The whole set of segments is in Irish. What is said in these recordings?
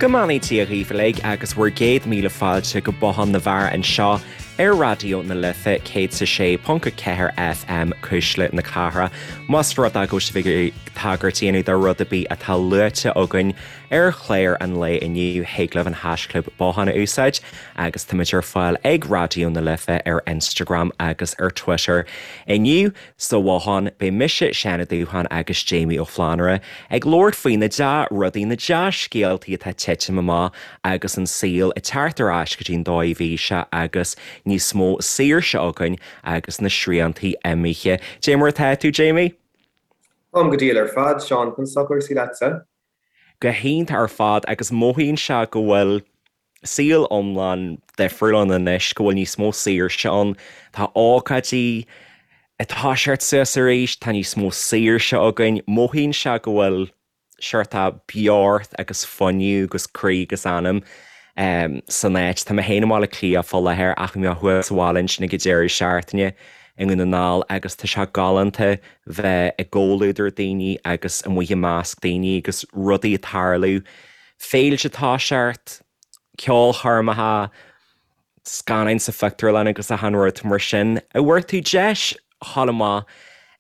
Go mbeannaí Dia dhaoibh uilig agus bhur gcéad míle fáilte go Bothán na bhFear anseo ar Raidió na Life 106.4 FM, Cuisle na Cathrach. Más rud é go bhfuil sibh ag iarraidh tagairt a dhéanamh do rud ar bith atá luaite againn ar chlár an lae inniu, thig libh an haischlib Bothán a úsáid agus táimid ar fáil ag Raidió na Life ar Instagram agus ar Twitter. Inniu, Sa Bhothán, beidh mise, Seán Ó Dúcháin agus Jamie Ó Flannúra ag labhairt faoi na dea-rudaí, na dea-scéaltaí atá ag titim amach agus an saol ag teacht ar ais go dtí an dóigh a bhí sé agus níos mó saoirse againn agus na sriantaí imithe. Dé mar atá tú, Jamie? Táim go diail ar fad, Seán. Conas tá cúrsaí leatsa? Go hiontach ar fad agus mothaíonn sé go bhfuil saol iomlán difriúil ann anois, go bhfuil níos mó saoirse ann. Tá ócáidí ag toiseacht suas arís, tá níos mó saoirse againn. Mothaíonn sé go bhfuil seort beocht agus fuinneamh agus croí agus anam san áit. Tá mé féin i mBaile Átha Cliath fá láthair ach bhí mé thuas sa bhaile ansin ag an deireadh seachtaine i nDún na nGall agus tá sé galánta bheith i gcomhluadar daoine agus amuigh i measc daoine agus rudaí ag tarlú. Féilte ag toiseacht, ceolchoirmeacha, scannáin sa phictiúrlann agus achan rud mar sin. An bhfuair tú deis dhul amach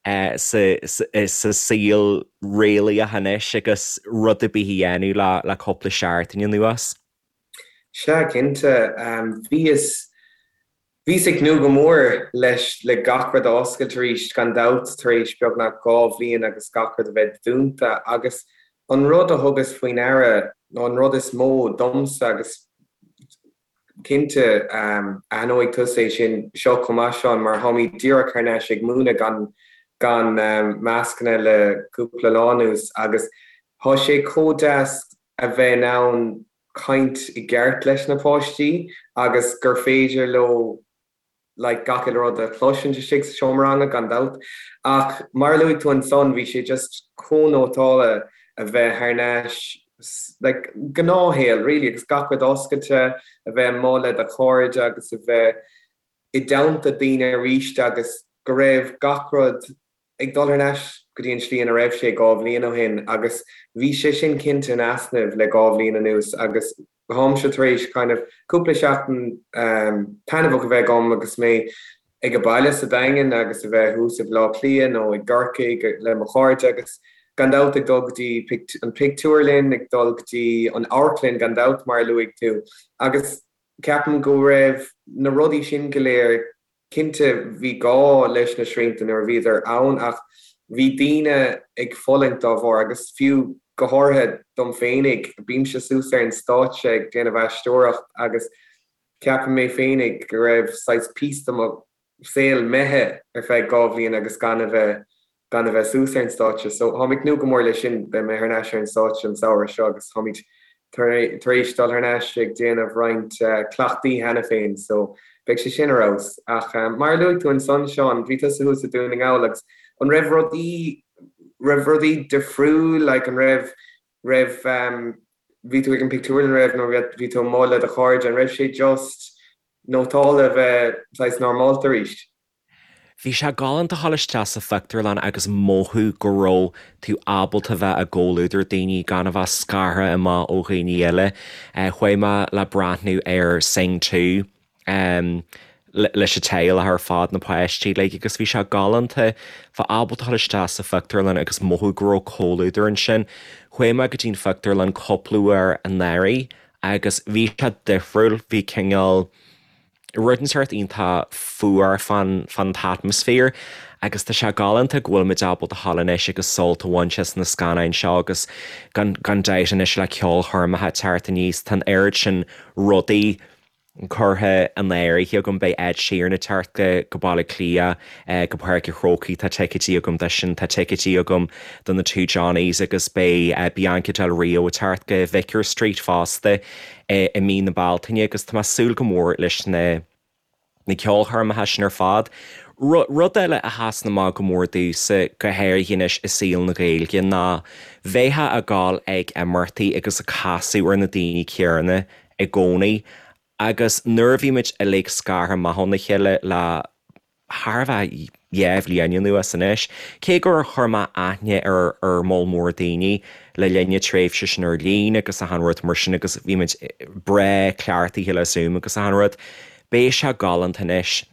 sa saol réalaíoch anois agus rud ar bith a dhéanamh le cúpla seachtain anuas? Sea, cinnte. Bhíos Bhíos ag tnúth go mór leis le gach rud a oscailt arís, gan dabht, tar éis beagnach 2 bhliain agus gach rud a bheith dúnta. Agus an rud a thugas faoi ndeara, nó an rud is mó domsa, agus cinnte aithneoidh tusa é sin seo chomh maith, Seán, mar táimid díreach thar n-ais ag múineadh gan gan mascanna le cúpla lá anuas agus tá sé chomh deas a bheith in ann caint i gceart leis na páistí agus gur féidir leo like gach uile rud a chloisint istigh sa seomra ranga gan dabht. Ach mar a luaigh tú ansan bhí sé just chomh nótálta a bheith thar n-ais like gnáthshaol really agus gach rud oscailte, a bheith amuigh le do chairde agus a bheith i dteannta daoine arís agus go raibh gach rud ag dul thar n-ais go dtí an tslí ina raibh sé 2 bhliain ó shin agus bhí sé sin cinnte in easnamh le 2 bhliain anuas agus táimse tar éis kind of cúpla seachtain taitneamhach a bheith agam agus mé ag baile sa Daingean agus a bheith thuas i Baile Átha Cliath nó i gCorcaigh le mo chairde agus gan dabht ag dul go dtí an pictiúrlann, ag dul go dtí an amharclann gan dabht mar a luaigh tú agus ceapaim go raibh na rudaí sin go léir Cinnte, bhí gá leis na srianta nuair a bhíodar ann ach bhí daoine ag fulaingt dá bharr agus fiú go háirithe dom féinig, bímse suas ar an stáitse ag déanamh aisteoireacht agus ceapaim mé féinig go raibh saghas píosa de mo saol imithe ar feadh 2 bhliain agus gan a bheith gan a bheith suas ar an stáitse. So táim ag tnúth go mór leis sin, beidh mé thar n-ais ar an stáitse an samhradh seo agus táimid tar éis dul thar n-ais ag déanamh roinnt cleachtaí cheana féin so beidh sé sin ar fheabhas. Ach mar a luaigh tú ansan, Seán, bhí tusa thuas i Dún na nGall agus an raibh rudaí, raibh rudaí difriúil, like an raibh, raibh, bhí tú ag an pictiúrlann, raibh, nó bhí tú amuigh le do chairde, an raibh sé just nótálta a bheith saghas normálta arís? Bhí sé galánta a dhul isteach sa phictiúrlann agus mothú go raibh tú ábalta bheith i gcomhluadar daoine gan a bheith scartha amach ó dhaoine eile. Chuaigh mé le breathnú ar Sing 2 leis an teaghlach ar fad, na páistí uilig, agus bhí sé galánta bheith ábalta a dhul isteach sa phictiúrlann agus mothú go raibh comhluadar ansin. Chuaigh mé go dtí an phictiúrlann cúpla uair anuraidh agus bhí sé difriúil, bhí cineál. rud inteacht iontach fuar fán fán t-atmaisféar agus tá sé galánta go bhfuil muid ábalta a dhul anois agus sult a bhaint as na scannáin seo agus gan gan dabht anois le ceolchoirmeacha ag teacht aníos tá an oiread sin rudaí curtha in áirithe agam beidh Ed Sheeran ag teacht go go Baile Átha Cliath go Páirc an Chrócaigh tá ticéidí agam dó sin tá ticéidí agam do na Two Johnnies agus beidh Bianca Del Rio ag teacht go Vicar Street fosta. i mí na Bealtaine agus tá mé ag súil go mór leis na na ceolchoirmeacha sin ar fad. Rud eile a sheasann amach go mór domhsa, go háirithe anois i saol na Gaeilge, ná bheifeá ag gabháil ag imeachtaí agus ag casadh ar na daoine céanna i gcónaí agus nuair a bhí muid uilig scartha amach óna chéile le thar a bheith. 2 bhliain anuas anois. Cé gur chuir mé aithne ar ar moll mór daoine le linn na tréimhse sin ar líne agus achan rud mar sin agus bhí muid breá cleachtaithe le Zoom agus achan rud, beidh sé galánta anois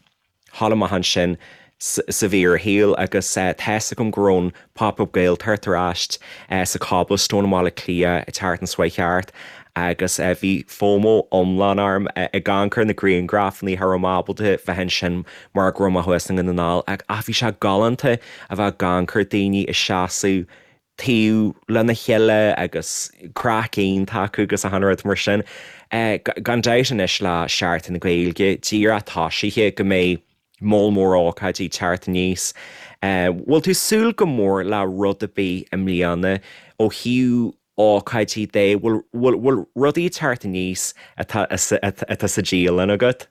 dhul amach ansin sa bhfíorshaol agus tá's agam go raibh an Pop Up Gaeltacht ar ais sa Cobblestone i mBaile Átha Cliath an tseachtain seo chuaigh thart agus bhí FOMO iomlán orm ag amharc ar na grianghrafanna cha raibh mé ábalta bheith ansin mar go raibh mé thuas i nDún na nGall ach bhí sé galánta a bheith ag amharc ar daoine ag seasamh taobh lena chéile agus craic iontach acu agus achan rud mar sin. Gan dabht anois le Seachtain na Gaeilge díreach tosaithe go mbeidh moll mór ócáidí ag teacht aníos. Bhfuil tú ag súil go mór le rud ar bith i mbliana ó thaobh ócáidí de? Bhfuil rudaí ag teacht aníos atá sa dialann agat?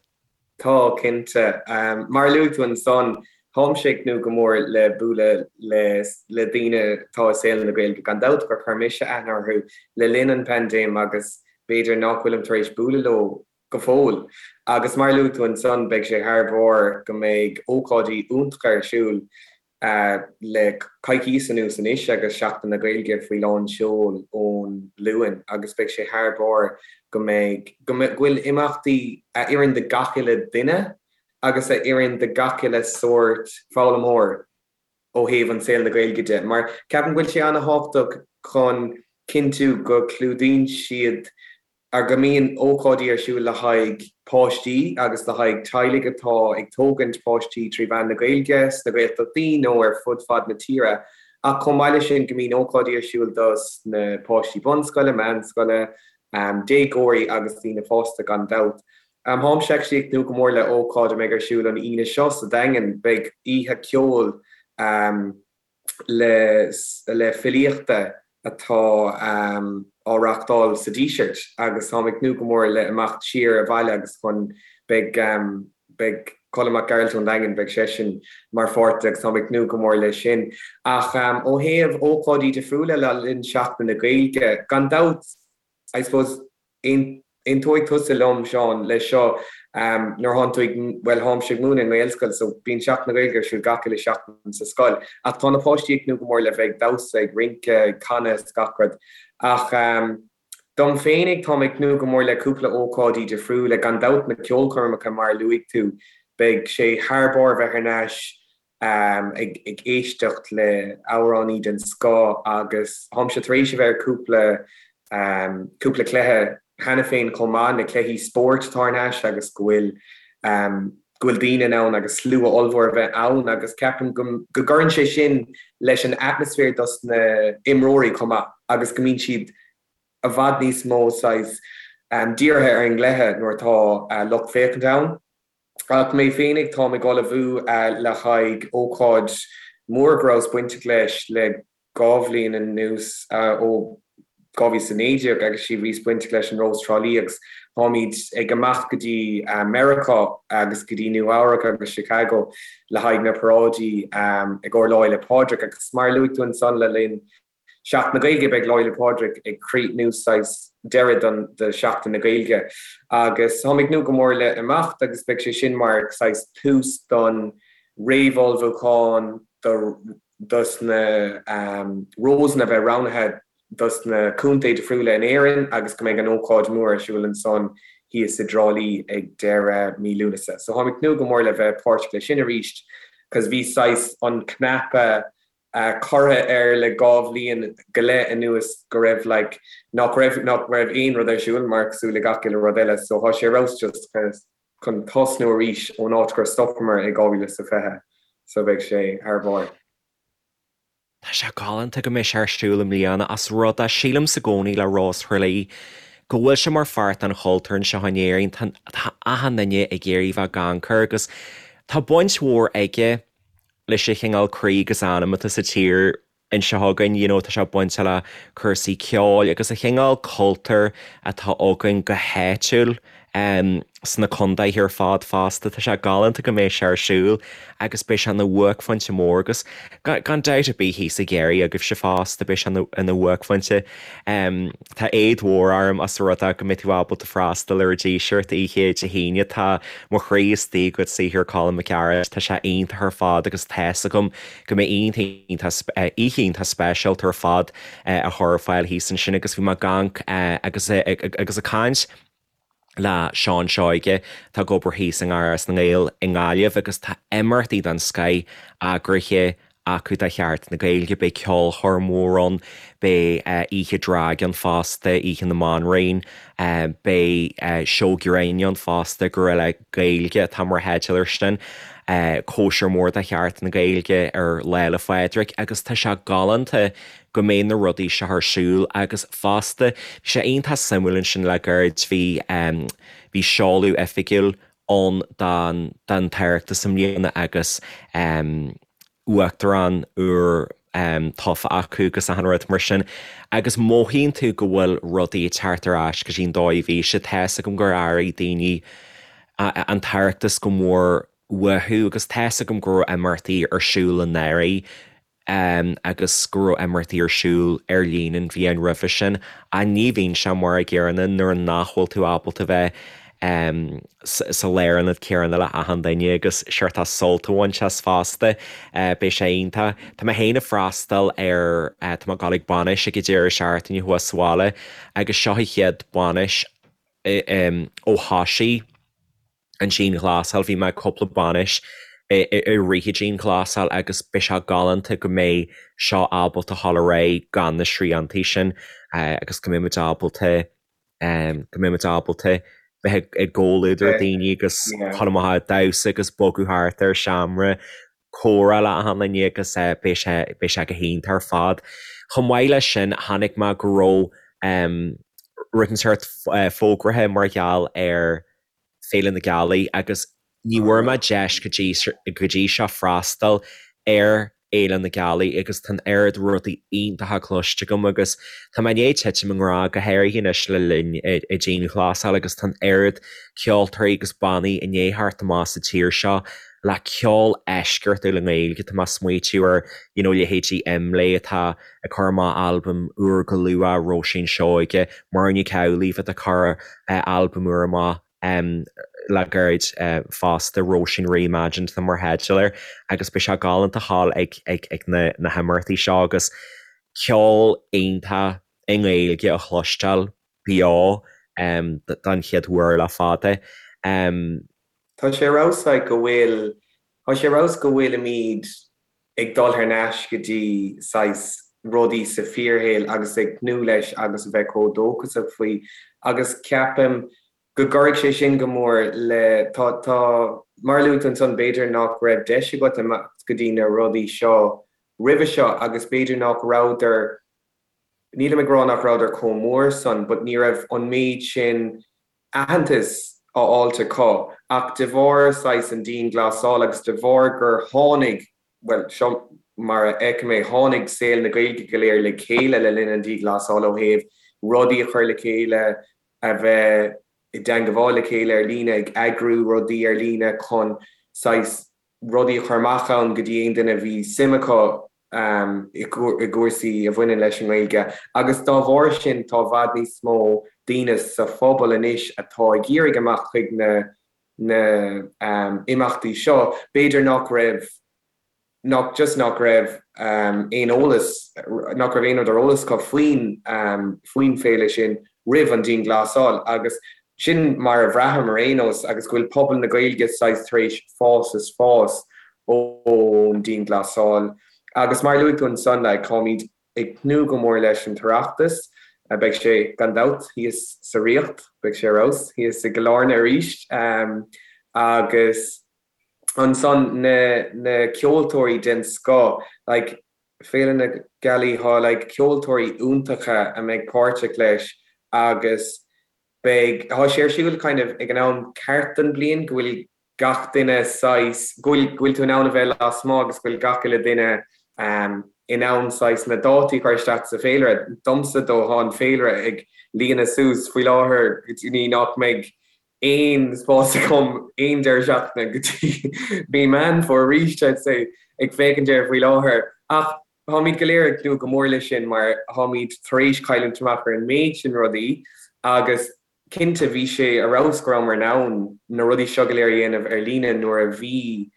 Tá, cinnte. Mar a luaigh tú ansan, táimse ag tnúth go mór le bualadh le le daoine atá i saol na Gaeilge, gan dabht, gur chuir mise aithne orthu le linn an paindéim agus b'fhéidir nach bhfuilim tar éis bualadh leo go fóill. Agus mar a luaigh tú ansan, beidh sé thar barr go mbeidh ócáidí iontacha ar siúl le coicíos anuas anois agus Seachtain na Gaeilge faoi lán seoil ón Luan agus beidh sé thar barr go mbeidh, go bhfuil imeachtaí a oireann do gach uile duine agus a oireann do gach uile sórt foghlaimeoir ó thaobh an saol na Gaeilge de mar ceapaim go bhfuil sé an-thábhachtach chun cinntiú go clúdaíonn siad ar go mbíonn ócáidí ar siúl le haghaidh páistí agus le haghaidh teaghlaigh atá ag tógaint páistí trí mheán na Gaeilge sna Gaeltachtaí nó ar fud fad na tíre ach chomh maith leis sin go mbíonn ócáidí ar siúl dos na páistí bunscoile, meánscoile, déagóirí agus daoine fásta gan dabht. Táimse actually ag tnúth go mór le ócáid a mbeidh ar siúl an Aoine seo sa Daingean. Beidh oíche ceoil le le filíochta atá á reachtáil sa Díseart agus táim ag tnúth go mór le imeacht siar abhaile agus chun beidh beidh Colm Mac Gearailt ón Daingean beidh seisean mar pháirt de agus táim ag tnúth go mór leis sin. Ach ó thaobh ócáidí difriúla le linn Seachtain na Gaeilge, gan dabht I suppose, aontóidh tusa liom, Seán, leis seo, nuair thánn tú ag, bhuel, tháimse ag múineadh i nGaelscoil so bíonn Seachtain na Gaeilge ar siúl gach uile seachtain sa scoil ach tá na páistí ag tnúth go mór le bheith ag damhsa, ag rince, ag canadh is gach rud. Ach dom féinig, táim ag tnúth go mór le cúpla ócáidí difriúla, gan dabht na ceolchoirmeacha mar a luaigh tú, beidh sé thar barr bheith thar n-ais ag éisteacht le amhránaí den scoth agus táimse tar éis a bheith ar cúpla cúpla cluiche cheana féin chomh maith, na cluichí spóirt atá thar n-ais agus go bhfuil go bhfuil daoine in ann agus slua ollmhór a bheith ann agus ceapaim go go gcuireann sé sin leis an atmaisféar dos na imreoirí chomh maith agus go mbíonn siad i bhfad níos mó saghas dírithe ar an gcluiche nuair atá lucht féachana ann. Ach mé féinig, táim ag ullmhú le haghaidh ócáid mhór go rabhas bainteach leis le 2 bhliain anuas, ó 2019 agus bhíos bainteach leis an Rós Trá Lí agus táimid ag imeacht go dtí Meiriceá agus go dtí Nua Eabhrac agus Chicago le haghaidh na paráidí i gcomhair Lá Fhéile Pádraig agus mar a luaigh tú ansan le linn Seachtain na Gaeilge, Beidh Lá Fhéile Pádraig ag críochnú saghas deireadh don do Sheachtain na Gaeilge agus táim ag tnúth go mór le imeacht agus beidh sé sin mar saghas tús don réamhullmhúchán do dos na Rósanna a bheith roghnaithe dos na contae difriúla in Éirinn agus go mbeidh an ócáid mór ar siúl ansan thíos i dTrá Lí ag deireadh mí Lúnasa. So táim ag tnúth go mór le bheith páirteach leis sin arís cos bhí saghas an cnaipe curtha air le 2 bhliain go leith anuas go raibh like nach raibh nach raibh aon rud ar siúl mar cosúil le gach uile rud eile so thá sé ar fheabhas just chun tosnú arís ón áit gur stopamar i 2020 so beidh sé thar barr. Tá sé galánta go mbeidh sé ar siúl i mbliana as rud é sílimse i gcónaí le Rós Thrá Lí go bhfuil sé mar pháirt den chultúr anseo in Éirinn tá tá achan duine ag iarraidh bheith ag amharc air agus tá baint mhór aige leis an chineál croí agus anam atá sa tír anseo againn, you know, tá sé bainte le cúrsaí ceoil agus an chineál cultúir atá againn go háitiúil. Sna contaetha ar fad fosta. Tá sé galánta go mbeidh sé ar siúl agus beidh sé ina bhuaicphointe mór agus gan dabht ar bith thíos i gCiarraí agaibhse fosta beidh sé ina bhuaicphointe. Tá éad mhór orm as an rud é go mbeidh tú ábalta freastal ar an Díseart oíche Dé hAoine. Tá mo chroí istigh i gcuid saothar Colm Mac Gearailt. Tá sé iontach ar fad agus tá's agam go mbeidh oíche iontach speisialta ar fad á chur ar fáil thíos ansin agus bhí mé ag amharc agus agus ag caint le Seán Seoige atá ag obair thíos i nGarrdha na nGael i nGaillimh agus tá imeachtaí den scoith eagraithe acu do Sheachtain na Gaeilge. Beidh ceolchoirm mhór ann, beidh oíche drag ann fosta, Oíche na mBanríon, beidh seó grinn ann fosta, Guerrilla Gaeilge atá mar theideal air sin, cóisir mhór do Sheachtain na Gaeilge ar Lá 'le Phádraig agus tá sé galánta go mbeidh na rudaí seo ar siúl agus fosta bhí sé iontach suimiúil ansin le gairid bhí bhí seoladh oifigiúil ann don don tOireachtas i mbliana agus uachtarán úr tofa acu agus achan rud mar sin agus mothaíonn tú go bhfuil rudaí ag teacht ar ais go dtí an dóigh a bhí sé. Tá's agam gur airigh daoine an tOireachtas go mór uathu agus tá's agam go raibh imeachtaí ar siúl anuraidh agus go raibh imeachtaí ar siúl ar líne an bhliain roimhe sin ach ní bhíonn sé mar a gcéanna nuair nach bhfuil tú ábalta bheith sa lárionad céanna le achan duine agus seort sult a bhaint as fosta. Beidh sé iontach. Tá mé féin ag freastal ar, tá mé ag dul ag bainis ag an deireadh seachtaine thuas sa bhaile agus seo an chéad bainis ó thosaigh an dianghlasáil. Bhí mé ag cúpla bainis i rith an dianghlasáil agus beidh sé galánta go mbeidh seo ábalta dhul ar aghaidh gan na sriantaí sin agus go mbeidh muid ábalta go mbeidh muid ábalta bheith i gcomhluadar daoine agus dhul amach ag damhsa agus bogadh thart ar seomra comhrá le achan duine agus beidh sé beidh sé go hiontach ar fad. Chomh maith leis sin chonaic mé go raibh rud inteacht fógraithe mar gheall ar Féile na Gealaí agus ní bhfuair mé deis go dtí go dtí seo freastal ar Fhéile na Gealaí agus tá an oiread rudaí iontacha cloiste agam agus tá mé i ndiaidh titim i ngrá go háirithe anois le linn an dianghlasáil agus tá an oiread ceoltóirí agus bannaí i ndiaidh theacht amach sa tír seo le ceol eisceachtúil i nGaeilge. Tá mé ag smaoitiú ar you know leithéidí Imlé atá ag cur amach albam úr go luath, Róisín Seoige, Muireann Nic Amhlaoibh atá ag cur albam úr amach le gairid fosta, Róisín Reimagined atá mar theideal air agus beidh sé galánta a ghabháil ag na himeachtaí seo agus ceol iontach i nGaeilge a chloisteáil beo don chéad uair le fada. Tá sé ar fheabhas like go bhfuil, tá sé ar fheabhas go bhfuilimid ag dul thar n-ais go dtí saghas rudaí sa fíorshaol agus ag tnúth leis agus a bheith chomh dóchasach faoi agus ceapaim go gcuirfidh sé sin go mór le, tá, tá, mar a luaigh tú ansan b'fhéidir nach raibh deis agat imeacht go dtí na rudaí seo roimhe seo agus b'fhéidir nach rabhadar, nílim ag rá nach rabhadar chomh mór san but ní raibh an méid sin aitheantas á fháilt acu ach de bharr saghas an dianghlasáil agus de bharr gur tháinig, bhuel, seo mar a fheicim é, tháinig saol na Gaeilge go léir le chéile le linn an dianghlasáil ó thaobh rudaí a chur le chéile, a bheith i dteangabháil le chéile ar líne, ag eagrú rudaí ar líne chun saghas rudaí a chur amach ann go dtí aon duine a bhí suim acu i gcúrsaí a bhaineann leis an nGaeilge agus dá bharr sin tá i bhfad níos mó daoine sa phobal anois atá ag iarraidh imeacht chuig na na imeachtaí seo. B'fhéidir nach raibh nach just nach raibh aon eolas nach raibh aon rud ar eolas acu faoin faoin féile sin roimh an dianghlasáil agus sin mar a bhraithim ar aon nós agus go bhfuil pobal na Gaeilge saghas tar éis fás is fás ón dianghlasáil. Agus mar a luaigh tú ansan, like, táimid ag tnúth go mór leis an tOireachtas. Beidh sé, gan dabht, thíos sa Ríocht, beidh sé ar fheabhas thíos i gCill Airne arís. Agus ansan na na ceoltóirí den scoth, like, Féile na Gealaí, tá like ceoltóirí iontacha a mbeidh páirteach leis agus beidh, tá sé ar siúl kind of ag an am ceart den bliain go bhfuil gach duine saghas, go bhfuil, go bhfuil tú in ann a bheith lasmuigh agus go bhfuil gach uile duine in ann saghas na dátaí a chur isteach sa féilire. Domsa dó, tá an féilire ag líonadh suas faoi láthair go dtí nach mbeidh. aon spás agam aon deireadh seachtaine go dtí mí Meán Fómhair arís, I'd say, ag féachaint air faoi láthair. Ach táimid go léir ag tnúth go mór leis sin mar táimid tar éis cailliúint amach ar an méid sin rudaí agus cinnte bhí sé ar fheabhas go rabhamar in ann na rudaí seo go léir a dhéanamh ar líne nuair a bhí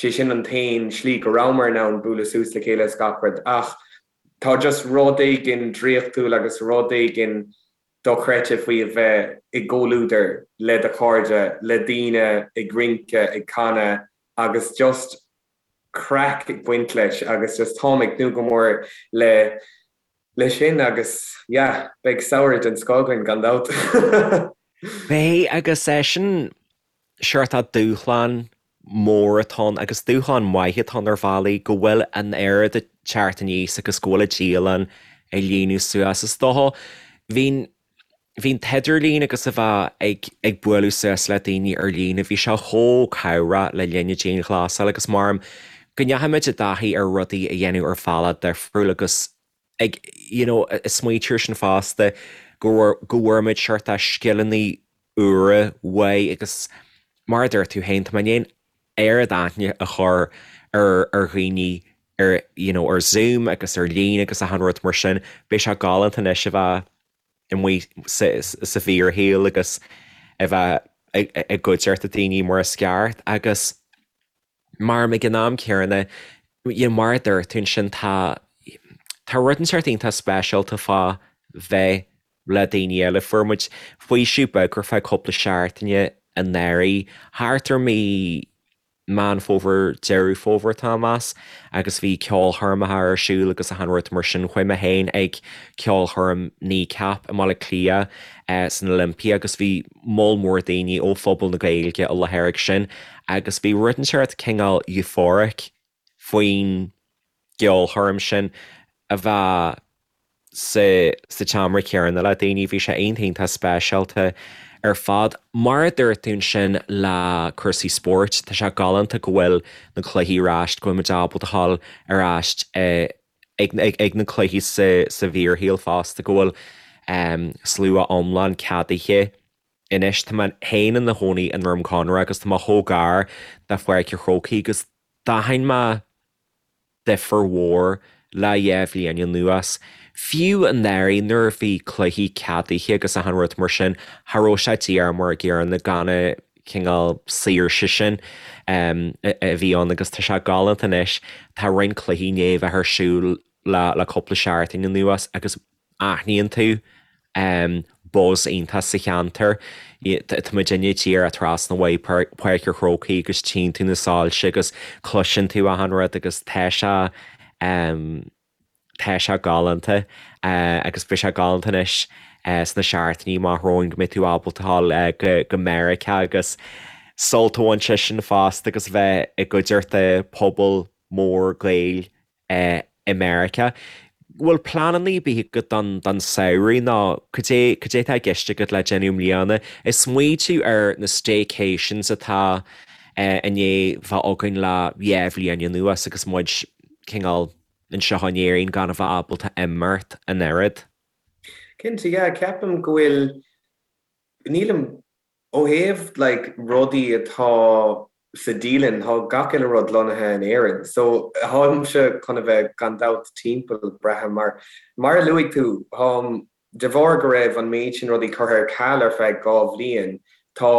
sé sin an t-aon slí go rabhamar in ann bualadh suas le chéile is gach rud ach tá just rud éigin draíochtúil agus rud éigin dochreidte faoi a bheith i gcomhluadar le do chairde, le daoine ag rince, ag canadh agus just craic ag baint leis agus just táim ag tnúth go mór le le sin agus yeah beidh samhradh den scoth againn gan dabht. Beidh agus sin seort dúshlán mór atá ann agus dúshlán maith atá ann ar bhealaí go bhfuil an oiread ag teacht aníos agus go bhfuil an dialann ag líonadh suas. Is dócha, bhí bhí an t-idirlíon agus a bheith ag ag bualadh suas le daoine ar líne, bhí sé chomh cabhrach le linn na dianghlasála agus maram go ndeachaigh muid i dtaithí ar rudaí a dhéanamh ar bhealach difriúil agus ag you know smaoitiú air sin fosta go go bhfuair muid seort scileanna úra uaidh agus mar a dúirt tú féin, tá mé i ndiaidh an oiread aithne a chur ar ar dhaoine ar you know ar Zoom agus ar líne agus achan rud mar sin. Beidh sé galánta anois a bheith amuigh sa sa bhfíorshaol agus a bheith i gcuideachta daoine mar is ceart agus Mar ag an am céanna, you know, mar a dúirt tú ansin, tá, tá rud inteacht iontach speisialta fá bheith le daoine eile. Fuair muid faoiseamh beag ar feadh cúpla seachtaine anuraidh, thart ar mí Meán Fómhair, Deireadh Fómhair tá mé ag meas, agus bhí ceolchoirmeacha ar siúl agus achan rud mar sin. Chuaigh mé féin ag ceolchoirm Kneecap i mBaile Átha Cliath san Olympia agus bhí moll mór daoine ó phobal na Gaeilge i láthair ag sin agus bhí rud inteacht cineál euphoric faoin gceolchoirm sin a bheith sa sa tseomra céanna le daoine. Bhí sé iontach iontach speisialta ar fad. Mar a dúirt tú ansin le cúrsaí spóirt, tá sé galánta go bhfuil na cluichí ar ais, go bhfuil muid ábalta a ghabháil ar ais ag na cluichí sa sa bhfíorshaol fosta, go bhfuil slua iomlán ceadaithe anois. Tá mé féin i mo chónaí i nDroim Conrach agus tá mé chomh gar do Pháirc an Chrócaigh agus d'aithin mé difear mhór le dhá bhliain anuas. Fiú anuraidh nuair a bhí cluichí ceadaithe agus achan rud mar sin, cha raibh sé díreach mar an gcéanna gan an cineál saoirse sin a bhí ann agus tá sé galánta anois. Tá roinnt cluichí i ndiaidh a bheith ar siúl le cúpla seachtain anuas agus aithníonn tú buzz iontach sa cheantar. Tá muidinne díreach trasna uaidh Páirc an Chrócaigh agus tchíonn tú na soilse agus cloiseann tú achan rud agus tá sé tá sé galánta agus beidh sé galánta anois sna seachtainí amach romhainn go mbeidh tú ábalta dul go Meiriceá agus sult a bhaint as sin fosta agus bheith i gcuideachta pobal mór Gaeil i Meiriceá. Bhfuil pleananna ar bith agat don don samhradh nó cad é cad é atá i gceist agat le déanamh i mbliana? Ag smaoitiú ar na staycations atá i ndiaidh bheith againn le dhá bhliain anuas agus muid cineál anseo in Éirinn gan a bheith ábalta imeacht an oiread. Cinnte, yeah, ceapaim go bhfuil, nílim Ó thaobh like rudaí atá sa dialann, tá gach uile rud lonnaithe in Éirinn. So táimse chun a bheith gan dabht timpeall, braithim, mar mar a luaigh tú, táim, de bharr go raibh an méid sin rudaí curtha ar ceal ar feadh 2 bhliain, tá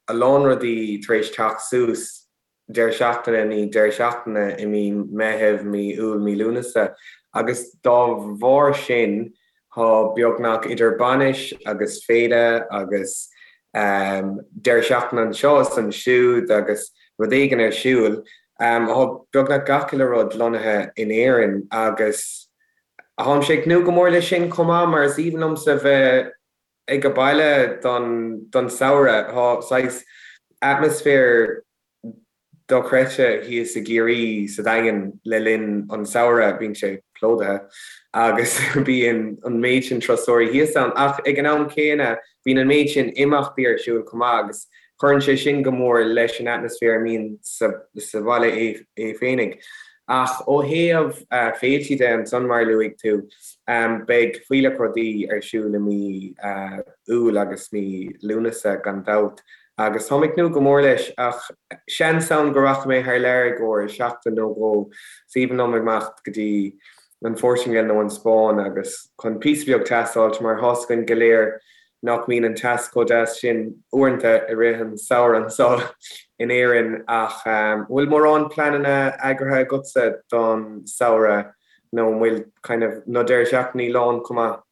a lán rudaí tar éis teacht suas deireadh seachtaine i ndiaidh deireadh seachtaine i mí Meitheamh, mí Iúil, mí Lúnasa agus dá bharr sin tá beagnach idir bainis agus féile agus deireadh seachtaine anseo is ansiúd agus rud éigin ar siúl. Tá beagnach gach uile rud lonnaithe in Éirinn agus táimse ag tnúth go mór leis sin chomh maith mar is aoibhinn liomsa bheith ag baile don samhradh. Tá saghas atmaisféar dochreidte thíos i gCiarraí sa Daingean le linn an samhradh, bíonn sé plódaithe agus bíonn an méid sin turasóirí thíos ann ach ag an am céanna bíonn an méid sin imeachtaí ar siúl chomh maith agus cuireann sé sin go mór leis an atmaisféar a mbíonn sa bhaile é féinig. Ach ó thaobh féiltí de ansan, mar a luaigh tú, beidh fuílleach rudaí ar siúl i mí Iúil agus mí Lúnasa gan dabht agus táim ag tnúth go mór leis ach seans ann go rachaidh mé thar lear i gcomhair seachtain nó dhó. Is aoibhinn liom imeacht go dtí an Phortaingéil nó an Spáinn agus chun píosa beag teas a fháilt mar tá's againn go léir nach mbíonn an teas chomh deas sin uaireanta i rith an samhradh anseo in Éirinn ach an bhfuil mórán pleananna eagraithe agatsa don samhradh nó an bhfuil kind of na deireadh seachtainí lán chomh maith?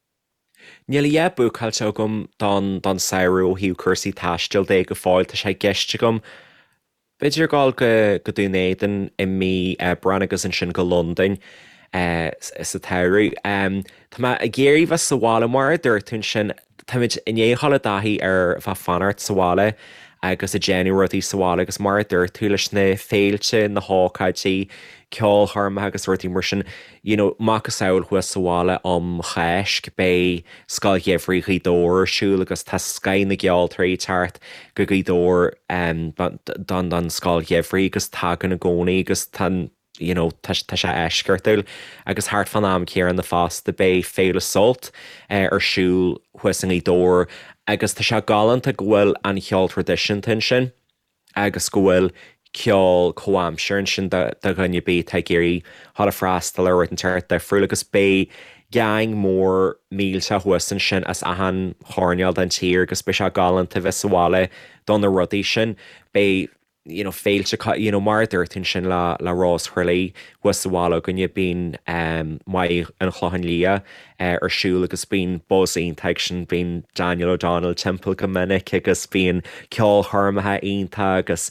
Níl a dhath búcáilte agam don don samhradh ó thaobh cúrsaí taistil de go fóill, tá sé i gceist agam B'fhéidir dul go Dún Éideann i mí Aibreáin agus ansin go Londain sa tsamhradh. Tá mé ag iarraidh bheith sa bhaile, mar a dúirt tú ansin, táimid i ndiaidh dhul i dtaithí ar bheith ag fanacht sa bhaile agus ag déanamh rudaí sa bhaile agus mar a dúirt tú leis na féilte, na hócáidí, ceolchoirmeacha agus rudaí mar sin, you know, macasamhail thuas sa bhaile um Cháisc, beidh Scoil Gheimhridh Ghaoth Dobhair ar siúl agus tá scoth na gceoltóirí ag teacht go Gaoth Dobhair don don Scoil Gheimhridh agus tagann i gcónaí agus tá you know, tá tá sé eisceachtúil agus thart fán am céanna fosta beidh Féile Sult ar siúl thuas i nGaoth Dobhair agus tá sé galánta go bhfuil an cheol traidisiúnta ansin. agus go bhfuil ceol comhaimseartha ansin do dhuine ar bith atá ag iarraidh dhul ag freastal ar rud inteacht difriúil agus beidh geaing mór millteach thuas ansin as achan choirnéal den tír agus beidh sé galánta bheith sa bhaile do na rudaí sin. Beidh you know féilte you know mar a dúirt tú ansin le le Rós Thraí thuas sa bhaile againne bíonn Maigh an Chlocháin Liath ar siúl agus bíonn buzz iontach ag sin, bíonn Daniel O'Donnell timpeall go minic agus bíonn ceolchoirmeacha iontach agus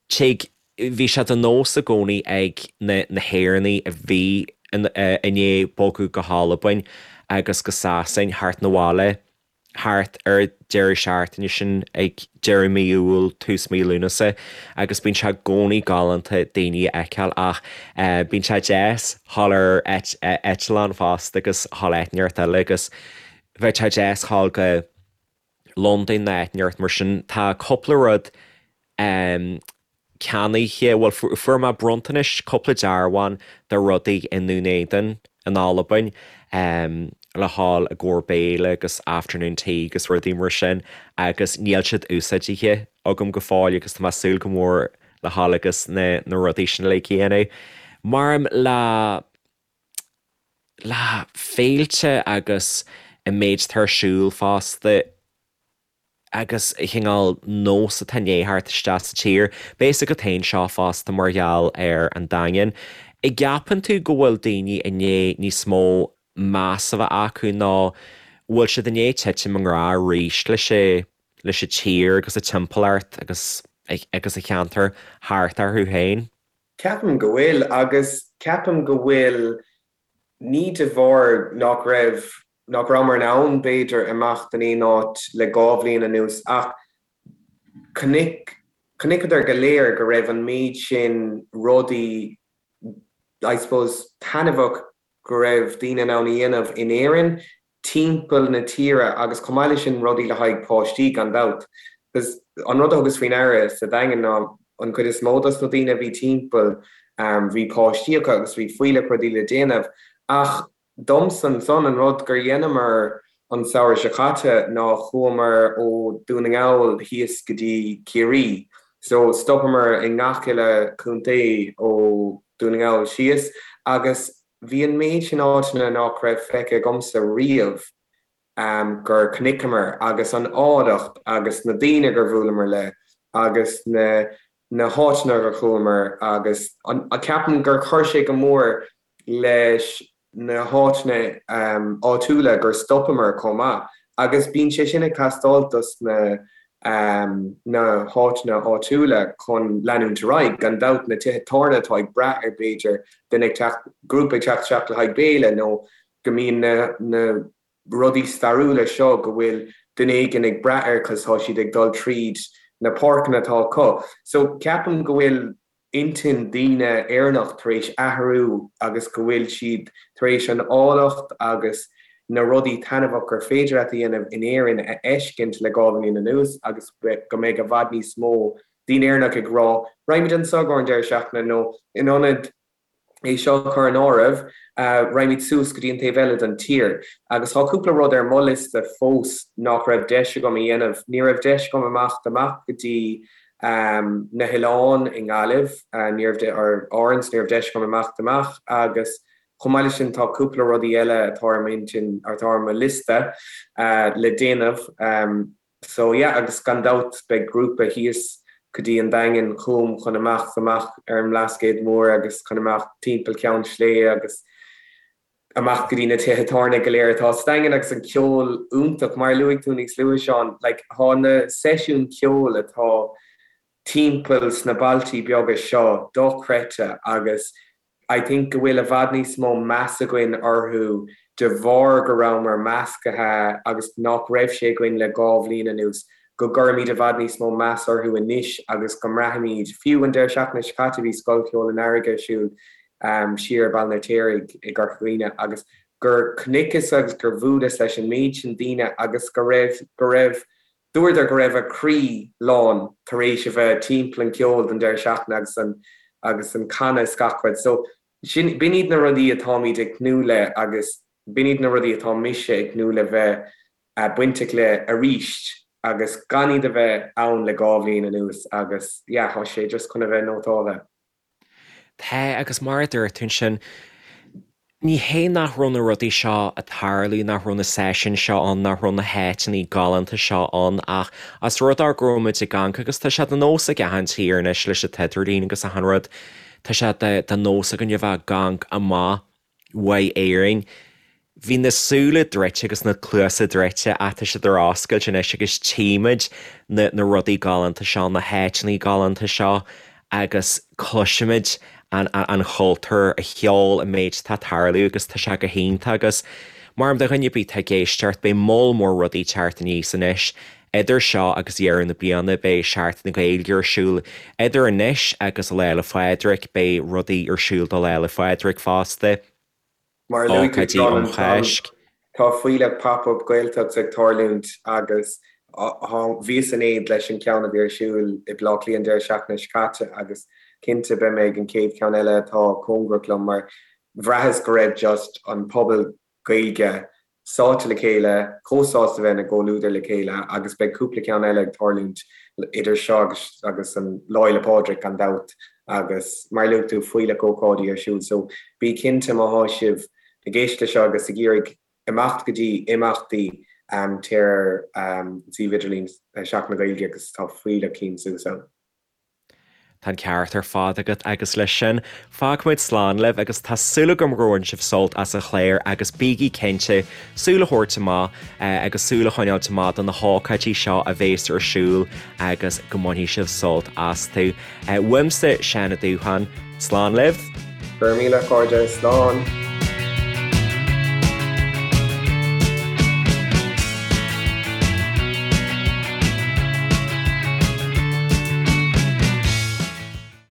tig, bhí sé de nós i gcónaí ag na na hÉireannaigh a bhí i ndiaidh bogadh go hAlbain agus go Sasain theacht 'na bhaile. thart ar deireadh seachtaine sin ag deireadh mí Iúil, tús mí Lúnasa agus bíonn sé i gcónaí galánta daoine a fheiceáil ach bíonn sé deas dhul ar eitleán fosta agus dhul áit inteacht eile agus bheadh sé deas dhul go Londain nó áit inteacht mar sin. Tá cúpla rud ceannaithe, bhuel fuair mé bronntanais, cúpla dearbhán de rudaí i nDún Éideann in Albain le dhul i gcomhair béile agus afternoon tea agus rudaí mar sin agus níl siad úsáidithe agam go fóill agus tá mé ag súil go mór le dhul agus na na rudaí sin uilig a dhéanamh. Maram le le féilte agus an méid atá ar siúl fosta. agus chineál nós atá i ndiaidh theacht isteach sa tír. Beidh a fhios agat féin seo fosta mar gheall ar an Daingean. An gceapann tú go bhfuil daoine i ndiaidh níos mó meas a bheith acu nó bhfuil siad i ndiaidh titim i ngrá arís leis leis an tír agus a timpeallacht agus agus a cheantar thart orthu féin? Ceapaim go bhfuil agus ceapaim go bhfuil ní de bharr nach raibh nach rabhamar in ann, b'fhéidir, imeacht in aon áit le 2 bhliain anuas ach chonaic, chonaiceadar go léir go raibh an méid sin rudaí, I suppose, taitneamhach go raibh daoine in ann a dhéanamh in Éirinn, timpeall na tíre agus chomh maith leis sin rudaí le haghaidh páistí gan dabht. Because an rud a thugas faoi ndeara sa Daingean ná an chuid is mó dos na daoine a bhí timpeall, bhí páistí acu agus bhí fuílleach rudaí le déanamh ach Domsa ansan, an rud gur dheineamar an samhradh seo caite ná chuamar ó Dún na nGall thíos go dtí Ciarraí. So stopamar i ngach uile chontae ó Dún na nGall síos agus bhí an méid sin áiteanna nach raibh feicthe agamsa riamh gur chonaiceamar agus an áilleacht agus na daoine gur bhuaileamar le agus na na háiteanna gur chuamar agus an ceapaim gur chuir sé go mór leis na háiteanna áitiúla gur stopamar chomh maith agus bíonn sé sin ag teastáil dos na na háiteanna áitiúla chun leanúint ar aghaidh. Gan dabht na tithe tábhairne atá ag brath ar b'fhéidir duine ag teacht, grúpa ag teacht isteach le haghaidh béile nó go mbíonn na na rudaí stairiúla seo go bhfuil duine éigin ag brath air cos tá siad ag dul tríd na páirceanna atá acu. So ceapaim go bhfuil intinn daoine Éireannach tar éis athrú agus go bhfuil siad tar éis an áilleacht agus na rudaí taitneamhach gur féidir leat a dhéanamh in Éirinn a fheiscint le 2 bhliain anuas agus go mbeidh i bhfad níos mó daoine Éireannach ag rá raghaimid anseo i gcomhair an deireadh seachtaine nó in ionad. É seo a chur in áireamh, raghaimid suas go dtí an taobh eile den tír. Agus tá cúpla rud ar mo liosta fós nach raibh deis agam a dhéanamh. Ní raibh deis agam imeacht amach go dtí na hoileáin i nGaillimh, ní raibh, or Árainn, ní raibh deis agam imeacht amach agus chomh maith leis sin tá cúpla rudaí eile atá ar m'intinn, atá ar mo liosta le déanamh. So yeah, agus gan dabht beidh grúpa thíos go dtí an Daingean chugam chun imeacht amach ar an mBlascaod Mór agus chun imeacht timpeall Ceann Sléibhe agus amach go dtí na tithe tábhairne go léir atá sa Daingean agus an ceol iontach, mar a luaigh tú níos luaithe Seán, like tá na seisiúin ceoil atá timpeall sna bailtí beaga seo dochreidte agus I think go bhfuil i bhfad níos mó meas againn orthu de bharr go rabhamar measctha agus nach raibh sé againn le 2 bhliain anuas, go gcuirimid i bhfad níos mó meas orthu anois agus go mbraithimid, fiú an deireadh seachtaine seo caite bhí Scoil Cheoil an Earraigh ar siúl siar i Baile an Fheirtéaraigh i gCorca Dhuibhne agus gur chonaiceas agus gur bhuaileas leis an méid sin daoine agus go raibh, go raibh. Dúradar go raibh a gcroí lán tar éis a bheith timpeall an ceol don deireadh seachtaine agus an agus an canadh is gach rud. So sin, b'in iad na rudaí atáimid ag tnúth le agus b'in iad na rudaí atá mise ag tnúth le bheith bainteach le arís agus gan iad a bheith ann le 2 bhliain anuas agus yeah, tá sé just chun a bheith nótáltha. Tá, agus mar a dúirt tú ansin, ní hé nach raibh na rudaí seo ag tarlú, nach raibh na seisiúin seo ann, nach raibh na háiteanna galánta seo ann ach as rud é go raibh muid ag amharc agus tá sé de nós ag achan tír anois leis an t-idirlíon agus achan rud, tá sé de nós againn a bheith ag amharc amach uaidh Éirinn. Bhí na súile druidte agus na cluasa druidte ach tá siad ar oscailt anois agus tchímid na na rudaí galánta seo, na háiteanna galánta seo agus cloisimid an an chultúr, an cheol, an méid atá ag tarlú agus tá sé go hiontach agus mar do dhuine ar bith atá ag éisteacht beidh moll mór rudaí ag teacht aníos anois Idir seo agus deireadh na bliana beidh Seachtain na Gaeilge ar siúl. Idir anois agus Lá 'le Phádraig beidh rudaí ar siúl do Lá 'le Phádraig fosta, Mar a luaigh tú ócáidí Seán um ansan, Cháisc. tá fuílleach Pop-Up Gaeltacht ag tarlúint agus bhíos in éad leis an ceann a bhí ar siúl i Baile Átha Cliath an deireadh seachtaine seo caite agus cinnte beidh mé ag an chéad cheann eile atá cóngarach liom mar bhraitheas go raibh just an pobal Gaeilge sáite le chéile, chomh sásta a bheith ina gcomhluadar le chéile agus beidh cúpla ceann eile ag tarlúint idir seo agus agus an Lá Fhéile Pádraig gan dabht agus mar a luaigh tú fuílleach ócáidí ar siúl so bí cinnte má thá sibh ag éisteacht le seo agus ag iarraidh imeacht go dtí imeachtaí téir ar an suíomh idirlín Seachtain na Gaeilge agus tá fuílleach cinn suas ann. Tá an ceart ar fad agat agus leis sin, fágfaimid slán libh agus tá súil agam gur bhain sibh sult as an chlár agus bígí cinnte súil a thabhairt amach agus súil a choinneáilt amach do na hócáidí seo a bhéas ar siúl agus go mbainfidh sibh sult astu. Uaimse, Seán Ó Dúcháin, slán libh! Go raibh míle, a chairde, slán!